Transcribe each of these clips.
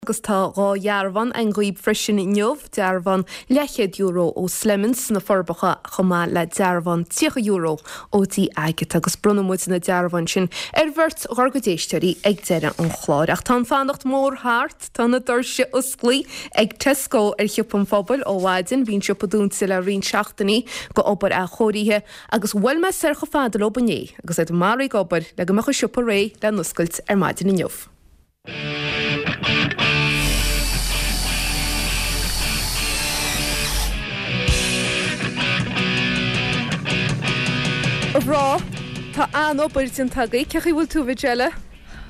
Agus tá 2 dhearbhán againn dhaoib freisin inniu, dearbhán leathchéad euro ó Slemons sna Forbacha chomh maith le dearbhán €30 ó dtí Agatha agus bronnfaidh muid na dearbháin sin ar bheirt dhár gcuid éisteoirí ag deireadh an chláir. Ach tá an fanacht mór thart, tá na doirse osclaí ag Tesco ar Shiopa an Phobail ó mhaidin. Bhí an siopa dúnta le roinnt seachtainí go obair athchóirithe agus bhuail mé soir chomh fada leob inné agus iad maraithe ag obair le go mbeadh an siopa réidh le n-oscailt ar maidin inniu. A mhná, tá an-obair déanta agaibh. Cén chaoi a bhfuil tú, a Mhijella?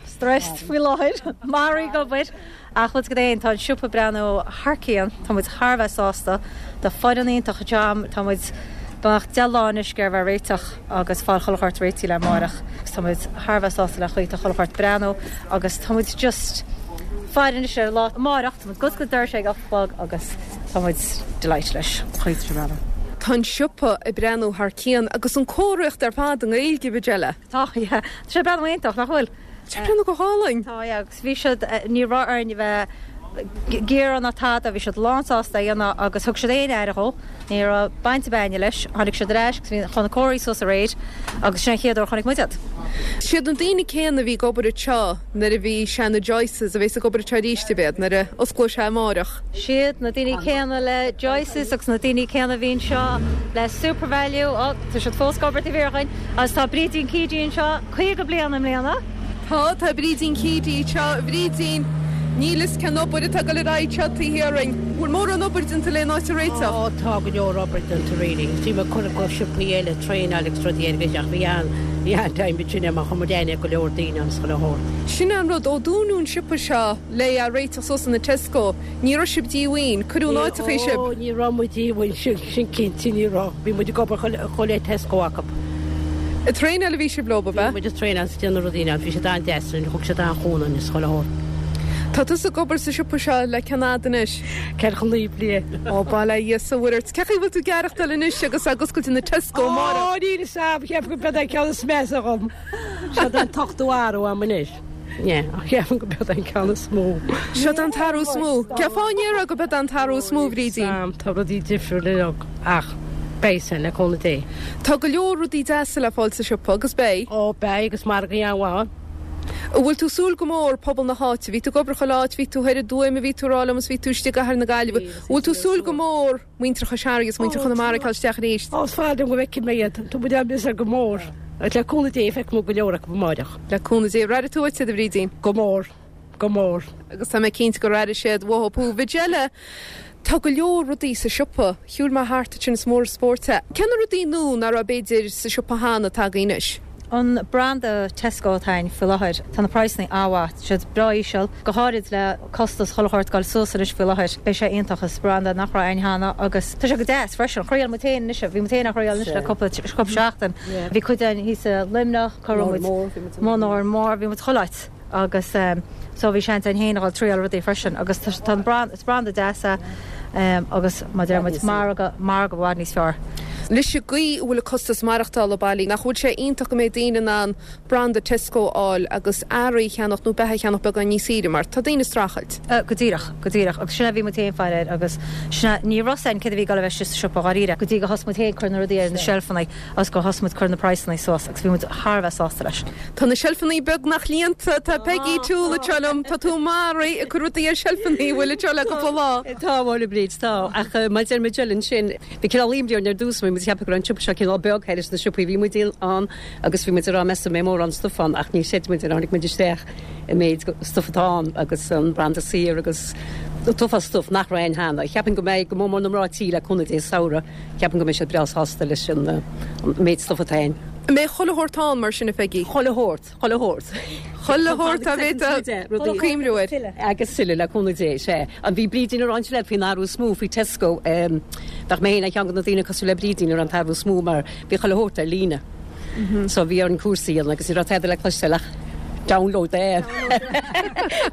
Stressed faoi láthair, maraithe ag obair. Ach bhfuil 'fhios agat féin, tá an siopa ag breathnú thar cionn, tá muid thar a bheith sásta, tá foireann iontach anseo, tá muid beagnach 10 lá anois ag iarraidh a bheith réiteach agus fáil chuile shórt réitithe le amárach agus tá muid thar a bheith sásta le chaoi tá chuile shórt ag breathnú agus tá muid just faire anois ar an lá amárach, tá muid ag oscailt doirse ag 8 a chlog agus tá muid delighted leis an chaoi tá sé ag breathnú. Tá an siopa ag breathnú thar cionn agus an comharthaíocht ar fad i nGaeilge, a Mhijella. Tá, yeah. Tá sé ag breathnú iontach, nach bhfuil? Tá sé ag breathnú go hálainn. Tá, yeah, agus bhí siad, ní raibh orainn a bheith ag iarraidh ná tada, bhí siad lán sásta é a dhéanamh agus thug siad aon aire dhó, ní raibh baint ar bith againne leis, tháinig siad ar ais agus bhí chun na comharthaí suas aréir agus sin an chéad uair a chonaic muid iad. Siad na daoine céanna a bhí ag obair anseo nuair a bhí sé ina Joyce's a bheas ag obair anseo arís, ab iad, nuair a osclóidh sé amárach. Siad na daoine céanna le Joyce's agus na daoine céanna a bhí anseo le Supervalu, ó, tá siad fós ag obair taobh thiar dhúinn, agus tá Brídín Keady anseo, 50 bliain i mbliana. Tá, tá Brídín Keady anseo. A Bhrídín, níl fhios cén obair atá ag dul ar aghaidh anseo taobh thiar dhúinn. Bhfuil mórán obair déanta le an áit a réiteach? Ó, tá go leor obair déanta really. Bhí mé ag cur go siopaí eile, traenáil agus rudaí air ach bhí an, bhí an-time ansin mar chuir muid aithne ar go leor daoine ann is chuile shórt. Sin é an rud, ó dúnadh an siopa seo le é a réiteach suas ina Tesco, ní raibh sibh díomhaoin, cuireadh in áiteachaí sibh. Ó, ní raibh muid díomhaoin, sin, sin cinnte, ní raibh. Bhí muid ag obair chomh le Tesco acu. Ag traenáil a bhí sibh leo, ab ea? Bhí muid ag traenáil is ag déanamh rudaí ann. Bhí siad an-deas linn, thug siad an-chúnamh dúinn is chuile shórt. Tá tusa ag obair sa siopa seo le cén fhad anois? 49 bliain. Ó, bail ó Dhia is ó Mhuire ort. Cén chaoi a bhfuil tú ag aireachtáil anois agus ag oscailt ina Tesco amárach? Ó, níl fhios a'm, cheapfainn go b'eod é an ceann is measa dhom. Seod é an t-ochtú athrú a'm anois. Yeah, ach cheapfainn go b'eod é an ceann is mó. Seod é an t-athrú is mó. Cén fáth a ndéarfá go b'eod é an t-athrú is mó, a Bhrídín? Sam, tá rudaí difriúil uilig ach beidh sin, le cúnamh Dé. Tá go leor rudaí deasa le fáil sa siopa, agus beidh. Ó, beidh, agus margaí an-mhaith ann. An bhfuil tú ag súil go mór pobal na háite? Bhí tú ag obair chuile áit, bhí tú thoir i dTuaim, a bhí tú ag rá liom, is bhí tú istigh i gCathair na Gaillimhe. An bhfuil tú ag súil go mór muintir Chois Fharraige is muintir Chonamara ag teacht isteach arís? Ó, is fearr liom go bhfeicfidh mé iad. Tá muid á miosar go mór. Agus le cúnamh Dé feicfidh muid go leor acu amáireach. Le cúnamh Dé. Ar airigh tú uait iad, a Bhrídín? Go mór. Go mór. Agus tá mé cinnte gur airigh siad uathu thú. Mhijella, tá go leor rudaí sa siopa. Shiúil mé thart ansin is mór an spórt é. Cé na rudaí nua nach raibh b'fhéidir sa siopa cheana atá agaibh anois? An branda Tesco atá againn faoi láthair, tá na praghsanna an-mhaith, tá siad breá íseal, go háirid le costas chuile shórt ag dul suas anois faoi láthair. Beidh sé iontach, is branda nach raibh againn cheana agus tá sé go deas freisin. Thriail muid féin anois, bhí muid féin á thriail anois le cúpla seachtain. Bhí cuid againn thíos i Luimneach, cá raibh muid, Mór Mór, bhí muid chuile áit agus so bhí seans againn féin a dhul triail rudaí freisin agus tá an branda, is branda deas é agus mar a deir muid, margadh, margadh i bhfad níos fearr. Leis an gcaoi a bhfuil an costas maireachtála bailí, nach bhfuil sé iontach go mbeidh daoine in ann branda Tesco a fháil agus earraí a cheannach nó beatha a cheannach beagán níos saoire mar tá daoine ag streachailt. Go díreach, go díreach. Agus sin é a bhí muid féin faire air agus sin é, ní raibh 'fhios a'inn céard a bhí ag dul a bheith istigh sa siopa dháiríre go dtí go thosaigh muid féin cur na rudaí ar na seilfeanna agus gur thosaigh muid cur na praghsanna suas agus bhí muid thar a bheith sásta leis. Tá na seilfeanna beagnach líonta, tá Peggy Toole anseo liom, tá tú maraithe ag cur rudaí ar seilfeanna, an bhfuil anseo le cúpla lá. Tá, a bhuel a Bhríd, tá. Ach mar a deir Majella ansin, Bhí cineál imní orainn ar dtús, bhí muid ag ceapadh go raibh an siopa seo cineál beag thairis na siopaí a bhí muid ann agus bhí muid ag rá meas tú an mbeidh mórán stuif ann ach ní chreid muid nuair a tháinig muid isteach an méid stuif atá ann agus an branda saor agus an t-uafás stuif nach raibh ann cheana. Cheapfainn go mbeidh go mór mór na mná tí le cúnamh Dé sa samhradh, ceapaim go mbeidh siad breá sásta leis an méid stuif atá ann. An mbeidh chuile shórt ann mar sin a Pheigí? Chuile shórt. Chuile shórt. Chuile shórt a bhféadfá cuimhniú air. Agus tuilleadh, le cúnamh Dé, sea. An bhí Brídín ag rá ansin leat faoin athrú is mó faoi Tesco? Bheadh mé féin ar cheann de na daoine cosúil le Brídín a raibh an t-athrú is mó mar bhí chuile shórt ar líne. So bhí orainn cúrsaí a dhéanamh agus ní raibh tada le cloisteáil ach. Download the app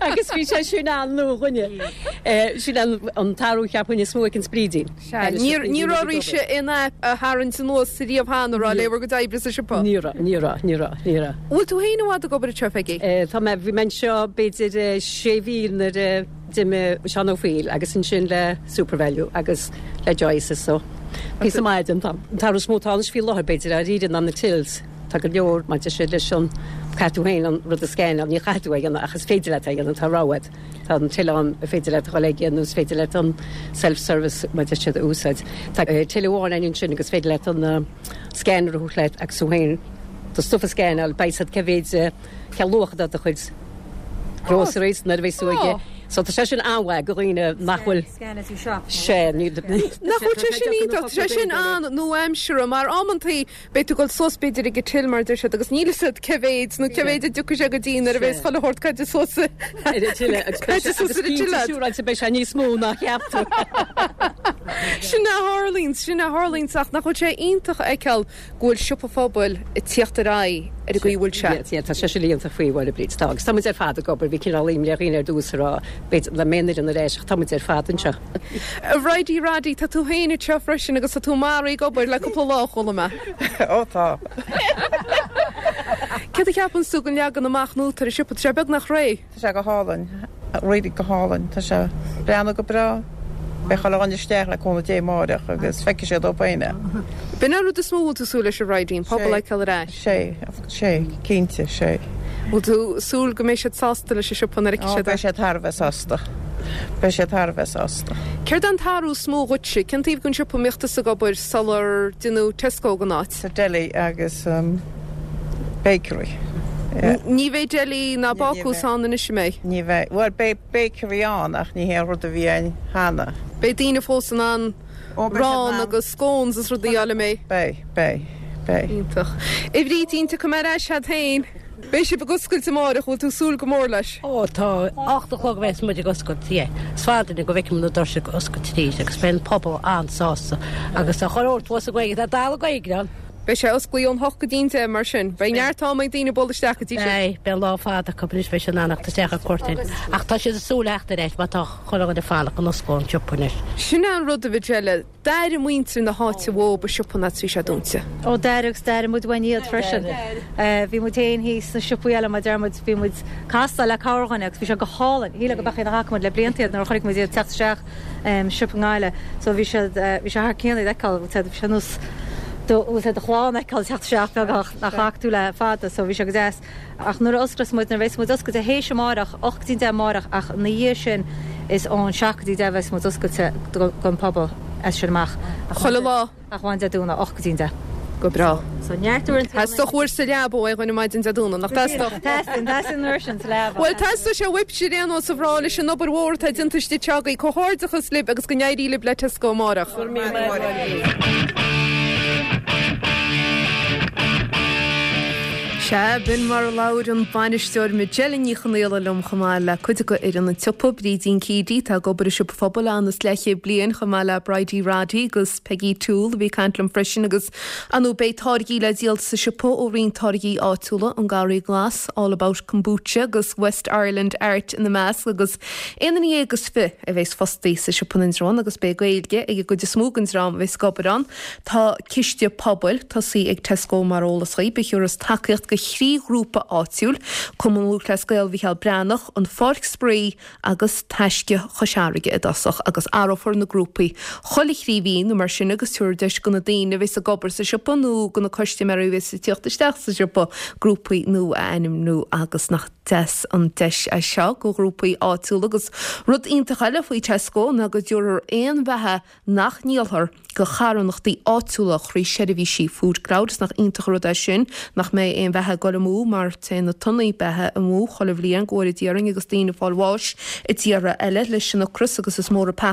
agus bhí sé sin an-nua dhúinne. Sin an t-athrú cheapfainn is mó ag an Brídín. Sea, ní raibh oraibhse aon aip a tharraingt anuas riamh cheana, raibh, le bhur gcuid oibre sa siopa? Ní raibh, ní raibh, ní raibh, ní raibh. Bhfuil tú féin i bhfad ag obair anseo, Peggy? Tá mé, bhí mé anseo b'fhéidir sé mhí nuair a d'imigh Seán Ó Foighil agus ansin le Supervalu agus le Joyce's so píosa maith den t-am. An t-athrú is mó atá anois faoi láthair b'fhéidir dáiríre ná na tills. Tá go leor maidir sin leis an, caithfidh tú féin an rud a scannáil, ní chaithfidh tú é a dhéanamh ach is féidir leat é a dhéanamh, tá rogha agat. Tá an till ann ar féidir leat a dhul aige nó is féidir leat an self-service mar a deir siad a úsáid. Tá till amháin ann ansin agus is féidir leat an scanner a thabhairt leat agus tú féin do stuff a scannáil, beidh a fhios agat cé mhéid, cén luach atá do chuid groceries nuair a bheas tú aige. So tá sé sin an-mhaith do dhaoine nach bhfuil Scan as you shop. Sea, ní. Nach bhfuil sé sin iontach, tá sé sin an-nua-aimseartha mar amantaí Beidh tú ag dul suas b'fhéidir ag an till mar a deir siad agus níl fhios agat cé mhéid nó cé mhéid a dtiocfaidh sé go dtí nuair a bheas chuile shórt caite suas ar an till agus beidh sé agus cinnte siúráilte beidh sé níos mó ná cheap tú. Sin a tharlaíonn, sin a tharlaíonn ach nach bhfuil sé iontach a fheiceáil go bhfuil siopa phobail ag tíocht ar aghaidh ar an gcaoi a bhfuil sé. Yeah, tá sé sin iontach faoi Mháire Bríd, tá agus tá muid ar fad ag obair, bhí cineál imní ar dhaoine ar dtús a rá b'fhéidir nach mbeidh an fhoireann ar ais ach tá muid ar fad anseo. A Bhridie Roddy, tá tú féin anseo freisin agus tá tú maraithe ag obair le cúpla lá, chuala mé. Ó tá. Céard a cheapann tú den leagan amach nua atá ar an siopa? Tá sé beagnach réidh. Tá sé go hálainn. Really go hálainn. Tá sé ag breathnú go breá. Beidh chuile dhuine isteach le cúnamh Dé amáireach agus feicfidh siad dóibh féin é. B'in an rud is mó a bhfuil tú súil leis a Bhridie, an pobal a fheiceáil ar ais. Sé, sé, cinnte, sé. Bhfuil tú súil go mbeidh siad sásta leis an siopa nuair a fheicfidh siad é? Ó, beidh siad thar a bheith sásta. Beidh siad thar a bheith sásta. Céard é an t-athrú is mó dhuitse? Cén taobh den siopa a mbíodh tusa ag obair sular deineadh Tesco den áit? Sa deli agus bakery. Yeah. Ní bheidh deli ná bácús ann anois, an mbeidh? Ní bheidh. Bhuel, beidh bakery ann ach ní hé an rud a bhí ann cheana. Beidh daoine fós in ann arán agus scones is rudaí a fháil, an mbeidh? Beidh, beidh, beidh. Iontach. A Bhrídín, tiocfaidh mé ar ais agat féin. Beidh sibh ag oscailt amárach, bhfuil tú ag súil go mór leis? Ó tá, 8 a chlog a bheas muid ag oscailt, yeah. Is fada go bhfeicfidh muid na doirse ag oscailt arís agus beidh an pobal an-sásta agus tá chuile shórt thuas againn, tá dalladh Gaeilge ann. Beidh sé osclaithe ón hocht go dtí'n deich mar sin. Beidh neart am ag daoine bualadh isteach go dtí sin. Beidh, beidh lá fada acu anois, beidh siad in ann a theacht isteach ar cuairt air. Ach tá siad ag súil le theacht ar ais mar tá chuile dhuine ag fanacht go n-osclódh an siopa anois. Sin é an rud a Mhajella, d'airigh muintir na háite uathub an siopa nuair a bhí sé dúnta. Ó d'airigh agus d'airigh muid uainn iad freisin. Bhí muid féin thíos sna siopaí eile mar deir muid, bhí muid ag castáil le cabhair dhuine agus bhí sé go hálainn. Shílfeá go beadh iad nach bhfaca muid le blianta iad nuair a chonaic muid iad ag teacht isteach. siopa i nGaillimh. So bhí siad, bhí sé thar cionn iad a fheiceáil, bhfuil siad, bhí sé nós do, bhfuil sé do chlann a fheiceáil teacht isteach beagnach nach bhfaca tú le fada, so bhí sé go deas. Ach nuair a osclós muid, nuair a bheas muid oscailte théis amáireach, 8 go dtí 10 amáireach ach ina dhiaidh sin is ón 7 go dtí 10 a bheas muid oscailte don phobal as sin amach. Chuile lá. Ach amháin Dé Domhnaigh, 8 go dtí an 10. Go breá. So neart uaireanta. Theastódh uair sa leaba ó aon dhuine maidin Dé Domhnaigh, nach dteastódh? Teastaíonn, teastaíonn an uair sin sa leaba. Bhuel, teastóidh sé uaibhse ar aon nós a mhná leis an obair mhór atá déanta istigh anseo agaibh. Comhghairdeachas libh agus go n-éirí libh le Tesco amárach. Go raibh míle maith agat. Sea, b'in mar a labhair an bainisteoir Majella Ní Chonaola liom chomh maith le cuid de fhoireann an tsiopa, Brídín Keady, atá ag obair i siopa phobail ann is leathchéad bliain, chomh maith le Bridie Roddy agus Peggy Toole a bhí ag caint liom freisin agus ar ndóigh beidh táirgí le díol sa siopa ó roinnt táirgí áitiúla, An Garraí Glas, All About Kombucha agus West Ireland Art ina measc agus aon duine dhéag is fi a bheas fostaí sa siopa in Indreabhán agus beidh Gaeilge ag an gcuid is mó den dream a bheas ag obair ann. Tá ciste pobail tosaithe ag Tesco mar eolas dhaoib a thiúrfas tacaíocht do thrí ghrúpa áitiúil, Cumann Lúthchleas Gael Mhicheál Breathnach, An Pháirc Spraoi agus Taisce Chois Fharraige i dtosach agus athrófar na grúpaí chuile thrí mhí nó mar sin agus tabharfar deis do na daoine a bheas ag obair sa siopa nó do na custaiméirí a bheas ag tíocht isteach sa siopa grúpaí nua a ainmniú agus nach deas an deis é seo do ghrúpaí áitiúla agus rud iontach eile faoi Tesco ná go dtabharfar aon bheatha nach ndíolfar do charthanachtaí áitiúla thrí sheirbhísí Food Cloud. Is nach iontach an rud é sin nach mbeidh aon bheatha ag dul amú mar téann na tonnaí beatha amú chuile bhliain go bhfóire Dia orainn agus daoine ag fáil bháis i dtíortha eile leis an ocras agus is mór an.